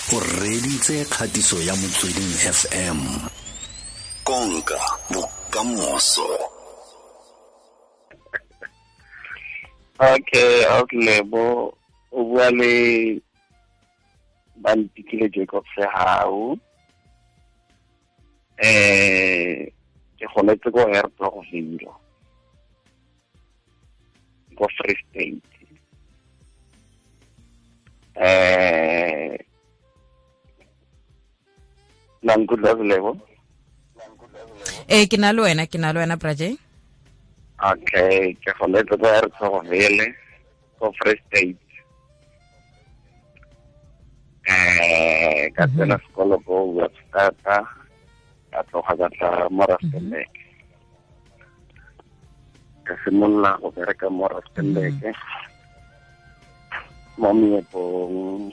O reditse kgatiso ya Motsweding FM. Konka bokamoso. Okay, Lebo, o bua le Bantikile Jacob Sehau. Ke goletse ko Hertzogville, ko Free State. La nkutlwa, Lebo? Ee, ke na le wena, ke na le wena, Braje. Okay, ke goletse ko Hertzogville, ko Free State. Ka tsena sekolo ko Webster, ka tloga ka tla mo Rustenburg. Ka simolola go bereka mo Rustenburg mo meepong,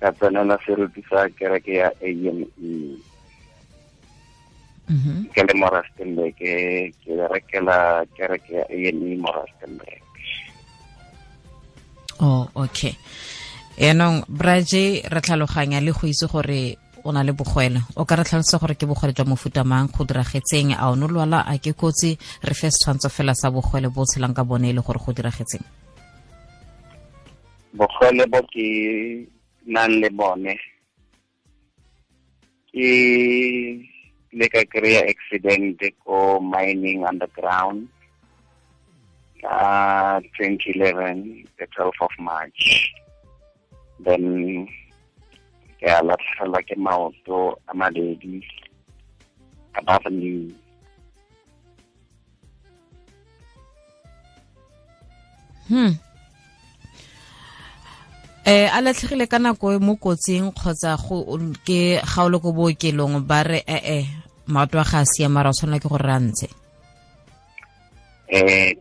ka tsenela seruti sa kereke ya AME. Ke le mo Rustenburg, ke berekela kereke ya AME mo Rustenburg. Oh, okay. Yaanong, Braje, re tlhaloganya le go itse gore o na le bogwele. O ka re tlhalosa gore ke bogwele jwa mofuta mang, go diragetseng, a o ne lwala, a ke kotsi? Re fe setshwantsho fela sa bogwele bo tshelang ka bone e le gore go diragetseng. Bogwele bo ke nang le bone ke le ka kry-a accident ko mining underground ka 2011, the 12th of March. Then ke a latlhegelwa ke maoto a mabedi above knee. A latlhegile ka nako e mo kotsing kgotsa go ke ga o le ko bookelong ba re maoto a ga a siama, ra o tshwanela ke gore re a ntshe?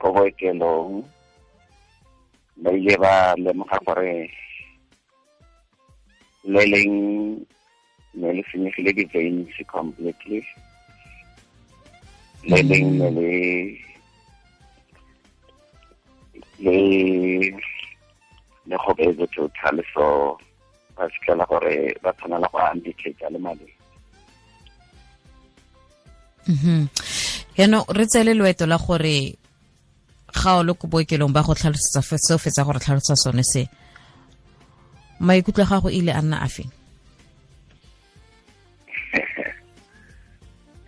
Ko bookelong ba ile ba lemoga gore le leng ne le senyegile di-veins completely, le leng ne le gobetse total, so ba fitlhela gore ba tshwanela go amputate le madi. Yaanong re tsele loeto la gore ga o le ko bookelong ba go tlhalosetsa seo fetsa gore tlhalosa sone se, maikutlo a gago ile a nna a feng?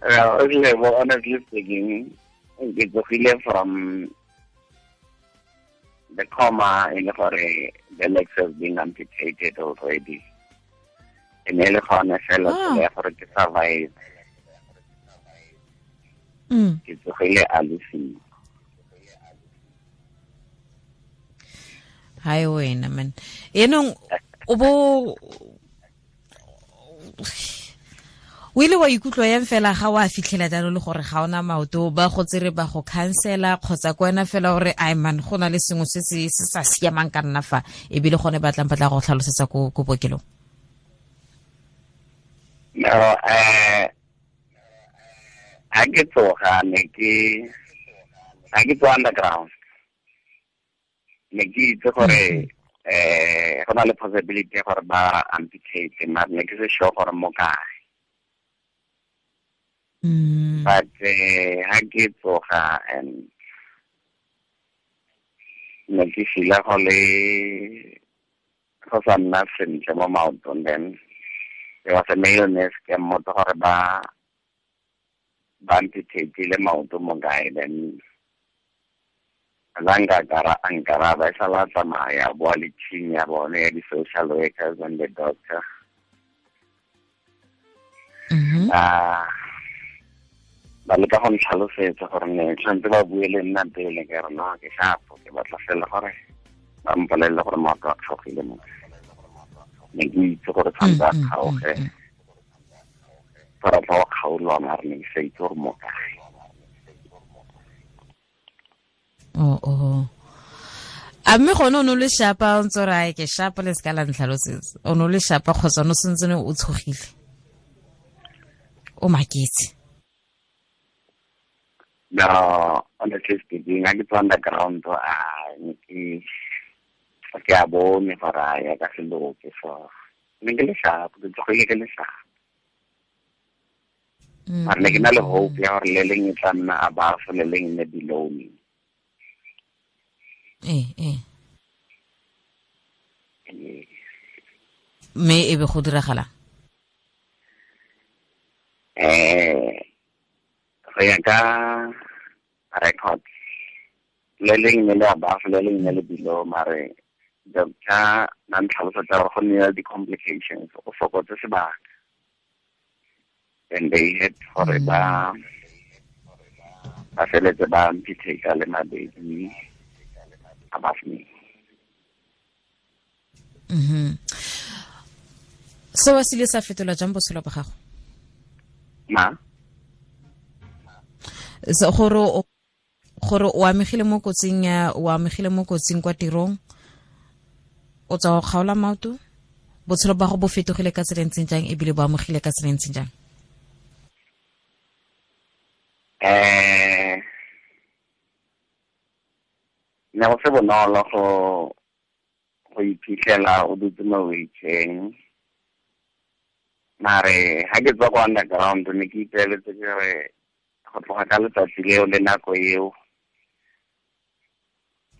Well, honestly speaking, ke tsogile from the coma e le gore the legs have been amputated already. E ne le gone fela tsela ya gore ke survive. Ke tsogile a le siko. Hai wena man. Yaanong o bo o ile wa ikutlwa yang fela ga wa fitlhela jalo le gore ga ona maoto, ba go tsere ba go cancela kgotsa ko wena fela gore ai man go na le sengwe se se sa siamang ka nna fa, ebile gone ba tlang ba tla go tlhalosetsa ko bookelong? No, ha ke tsoga ne ke ha ke tswa underground ne ke itse gore go na le possibility gore ba amputate, mara ne ke se sure gore mo kae. But ha ke tsoga and ne ke feel-a go le go sa nna sentle mo maotong. Then there was a male nurse ke mmotsa gore ba amputate le maoto mo kae. Then nkaraba e sala tsamaya boa le team ya bone ya di-social workers and the doctor. Ba leka go ntlhalosetsa gore ne tshwanetse ba bue le nna pele, ke re no, ke shapo, ke batla fela gore ba mpolelele gore maoto a kgaogile mo. Ne ke itse gore tshwanetse a kgaoge, gore tla go kgaolwa, mare ne ke sa itse gore mo kae. Oh. A mme gone o ne o le shapa, o ntse o re ai ke shapa le seka la ntlhalosetsa. O ne o le shapa kgotsa o ne o sentse o tshogile? O maketse? No, honestly speaking, ha ke tswa underground, ke a bone gore a ya ka se loke, so Ne ke le sharp, ke tsogile ke le sharp. Mare ne ke na le hope ya gore le leng e tla nna above, le leng ne below me. Ee. Mme e be go diragala? Go ya ka record, le leng ne le above, le leng ne le below, mare doctor na ntlhalosetsa gore go nne di-complications, o fokotse sebaka. And they had gore ba feletse ba amputate le mabedi above me. Seo se ile sa fetola jang botshelo ba gago? Ma? So gore o amegile mo kotsing ya, o amegile mo kotsing kwa tirong, o tswa go kgaola maoto, botshelo ba go bo fetogile ka tsela e ntseng jang ebile bo amogile ka tsela e ntseng jang? Ne go se bonolo go iphitlhela o dutse mo wheelchair. Mare ha ke tswa kwa underground ne ke ipeeletse ke re go tloga ka letsatsi leo le nako eo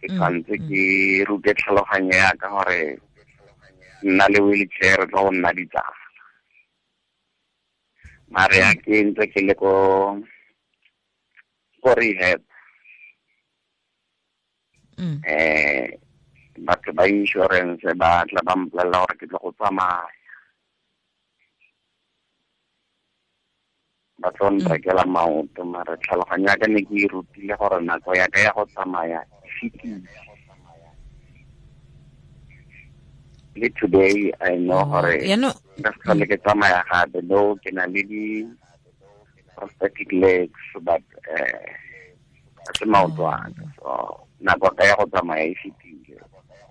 ke tshwanetse ke rute tlhaloganyo ya ka gore nna le wheelchair re tlo go nna ditsala. Mare ha ke ntse ke le ko rehab, batho ba insurance ba tla ba mpolelela gore ke tlo go tsamaya, ba tlo nrekela maoto. Mare tlhaloganyo ya ka ne ke e rutile gore nako ya ka ya go tsamaya e fetile. Le today I know gore nka se tlhole ke tsamaya gape, though ke na le di prosthetic legs, but ga se maoto a ka. So nako ka ya go tsamaya e fetile,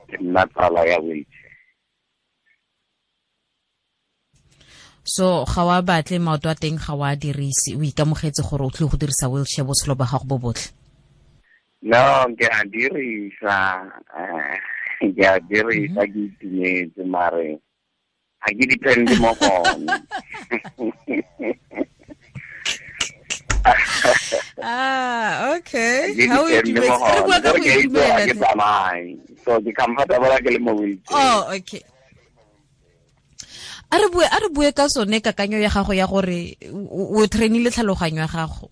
ke nna tsala ya wheelchair. So ga wa batle maoto a teng, ga wa dirise, o ikamogetse gore o tlile go dirisa wheelchair botshelo ba gago bo botlhe? No, ke a dirisa, ke a dirisa, ke itumetse, mare ga ke depende mo go one. Ah, okay. How you do it? So ke comfortable ke le mo wheelchair. Oh, okay. A re bue ka sone kakanyo ya gago ya gore o trainile tlhaloganyo ya gago.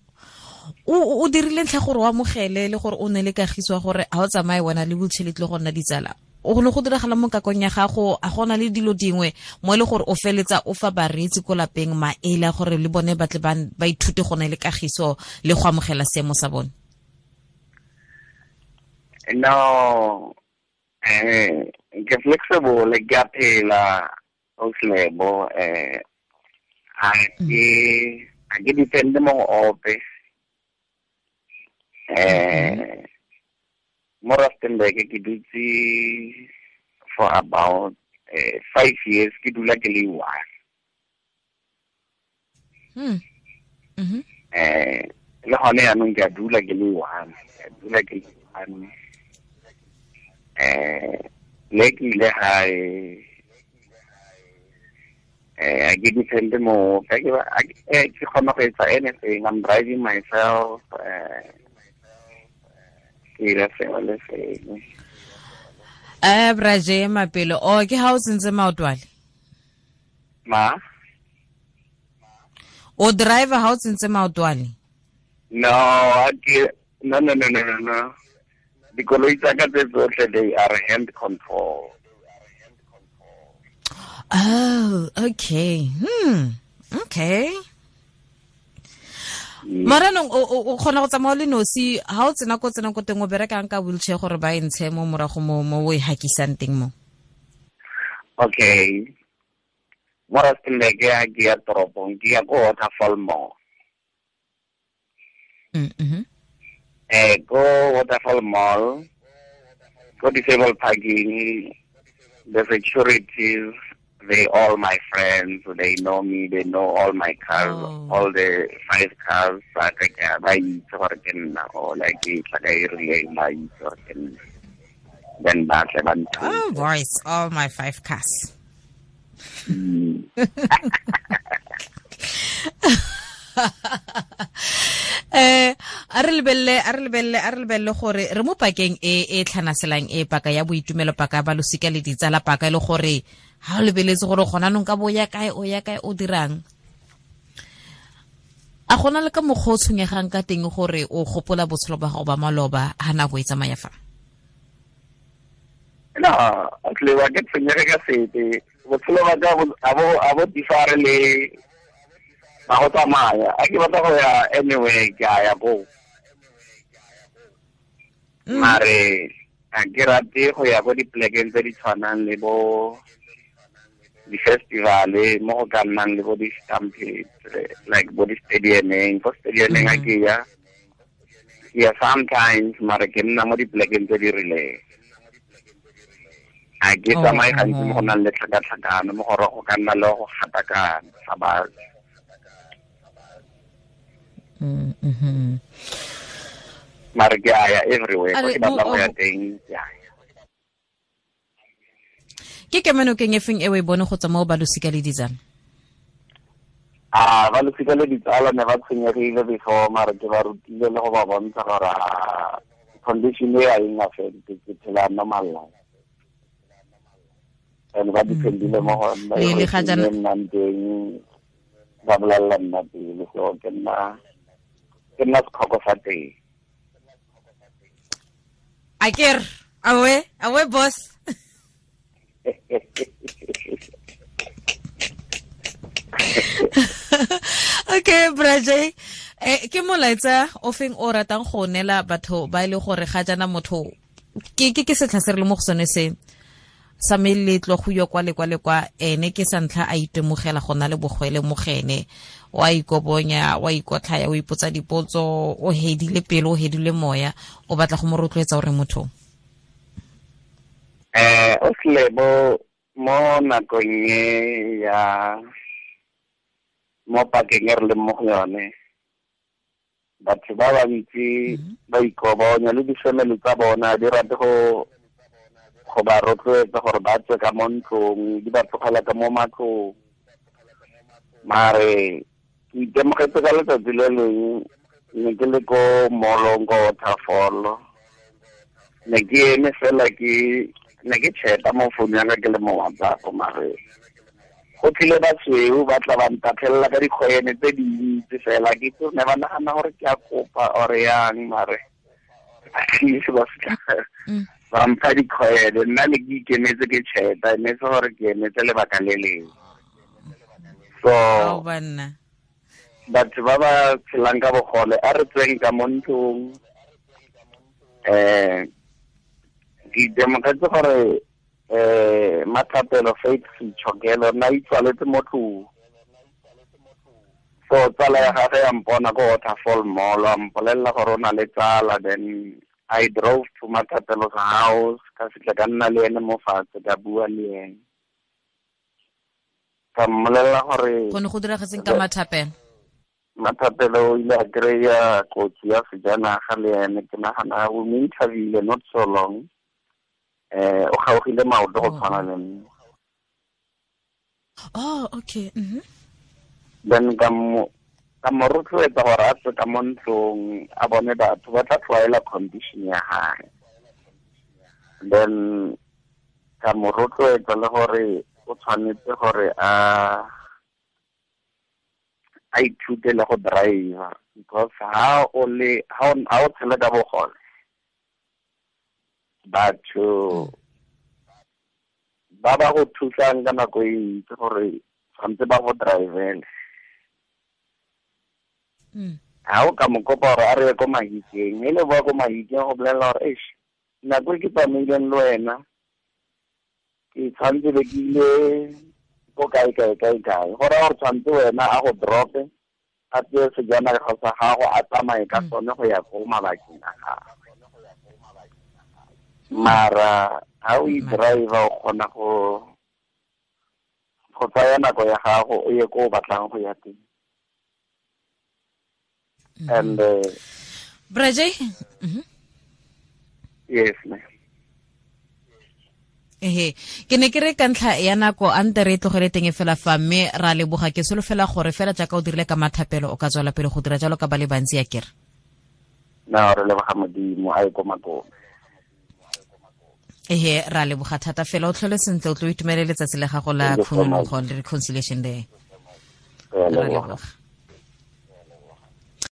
O dirile ntlha gore o amogele le gore o ne le kagiso gore ha o tsamaye wena le wheelchair le tle go nna ditsala. O gone go diragala mo kakong ya gago, a gona le dilo dingwe mo e le gore o feletsa o fa bareetsi ko lapeng maele a gore le bone ba tle ba ithute go ne le kagiso le go amogela seemo sa bone? No, ke flexible, ke a phela, o slebo, a ke depende mo go ope. Mo Rustenburg ke dutse for about 5 years, ke dula ke le one. Le gone yaanong ke a dula ke le one, ke a dula ke le one. Le ke ile gae, I ke depende mo, ke kgona go etsa anything, I'm driving myself, ke ira sengwe le sengwe. Braje Mapelo, o ke ha o tsentse maotwale? Ma? O driver ha o tsentse maotwale? No, no. Dikoloi tsa ka tse tsotlhe, they are hand control. Oh, okay. Okay. Maranong o kgona go tsamaya le nosi ha o tsena ko tsena ko teng o berekang ka wheelchair gore ba e ntshe mo morago mo o e hakisang teng mo? Okay. Mo Rustenburg ke ya toropong, ke ya ko Waterfall Mall. Ko Waterfall Mall, ko disabled parking, the securities, they all my friends, they know me, they know all my cars, all the 5 cars, ba itse gore ke nna, or like ke tla ka e rileng, ba itse gore ke nna. Then ba tle ba nthuse. Oh, boys, all my 5 cars. A re lebelele gore re mo pakeng e tlhanaselang e paka ya boitumelo, paka ba losika le ditsala, paka e le gore ha o lebeletse gore gona nong ka bo ya kae o ya kae o dirang. A gona le ka mokgwa o tshwenyegang ka teng gore o gopola botshelo ba gago ba maloba ha nako e tsamaya fa? No, tlewa ke tshwenyege ka sepe. Botshelo ba ka a bo differ le ba go tsamaya. A ke batla go ya anywhere, ke a ya ko. Mare a ke rate go ya ko dipolekeng tse di tshwanang le bo di-festival-e mo go ka nnang le bo di-stampede, like bo di-stadiumeng. Ko stadiumeng a ke ya sometimes, mare ke nna mo dipolekeng tse di rileng. A ke tsamaye gantsi mo go nang le tlhakatlhakano, mo gore go ka nna le go gatakana ga batho. Mare ke a ya everywhere, ko ke batla go ya teng, ke a ya. Ke kemenokeng e feng e o e bone go tswa mo ba losika le ditsala? A ba losika le ditsala ne ba tshwenyegile before, mare ke ba rutile le go ba bontsha gore condition e a eng affect, ke phela normal life. And ba dependile mo go nna, Le ga jaana nnang teng, ba bolelela nna pele, so ke nna setlhoko sa teng. Aker, awe boss. Okay, Braje, ke molaetsa o feng o ratang go neela batho ba ile gore ga jana motho ke setlha se re le mo go sone se sa meletlo go yo kwa le kwa le kwa, ene ke sa ntlha a itemogela go na le bogwele mo gene, wa ikobonya, wa ikotlhaya, o ipotsa dipotso, o hedile pelo, o hedile moya, o batla go mo rotloetsa gore motho O Slebo mo nakong e ya mo pakeng e re leng mo go yone, batho ba bantsi ba ikobonya le di-family tsa bona di rate go ba rotloetsa gore ba tswe ka mo ntlong, di ba tlogela ka mo matlong. Mare ke itemogetse ka letsatsi le leng ne ke le ko mall-ong ko Waterfall, ne ke eme fela ke ne ke cheta mo founu ya ka ke le mo WhatsApp, mare go tlile basweu ba tla ba ntatlhelela ka dikgwene tse dintsi fela. Ke itse ne ba nagana gore ke a kopa or yang, mare at least ba fitlha ba mpha dikgwele. Nna ne ke ikemetse ke cheta, ne se gore ke emetse lebaka le lengwe. So batho ba ba tshelang ka bogole a re tsweng ka mo ntlong. Ke itemogetse gore Mathapelo Faith Sechokelo nna itswaletse mo tlong. So tsala ya gagwe ya mpona ko Waterfall Mall, a mpolelela gore o na le tsala. Then I drove to Mathapelo's house, ka fitlha ka nna le ene mo fatshe, ka bua le ene, ka mmolelela gore go ne go diragetseng ka Mathapelo. Mathapelo o ile a kry-a kotsi ya sejanaga le ene, ke nagana o mo interviewile not so long. O kgaogile maoto go tshwana le nna. Oh, okay. Then ka mo rotloetsa gore a tswe ka mo ntlong, a bone batho ba tla tlwaela condition ya hae. Then ka mo rotloetsa le gore o tshwanetse gore a ithute le go driver, because ha o tshela ka bogole, batho ba ba go thusang ka nako e ntsi gore tshwanetse ba go drivele. Ha o ka mo kopa gore a re ye ko Mahikeng, e le boa ko Mahikeng go bolelela gore eish, nako e ke tsamaileng le wena ke tshwanetse be ke ile ko kae kae kae kae. Go raya gore tshwanetse wena a go drop-e, a tseye sejanaga sa gago, a tsamaye ka sone go ya ko mabakeng a gagwe. Mara ha o i-driver o kgona go tsaya nako ya gago o ye ko o batlang go ya teng. And Braje, yes ma'am. Ehe, ke ne ke re ka ntlha ya nako a nte re e tlogele teng fela fa, mme ra leboga. Ke solofela gore fela jaaka o dirile ka mathapelo, o ka tswela pele go dira jalo ka ba le bantsi ya kere. No, re leboga Modimo a ye ko makong. Ehe, ra leboga thata fela, o tlhole sentle, o tlo itumele letsatsi la gago la Thank you so much. khunologo le Reconciliation Day. Re a Ra leboga. leboga.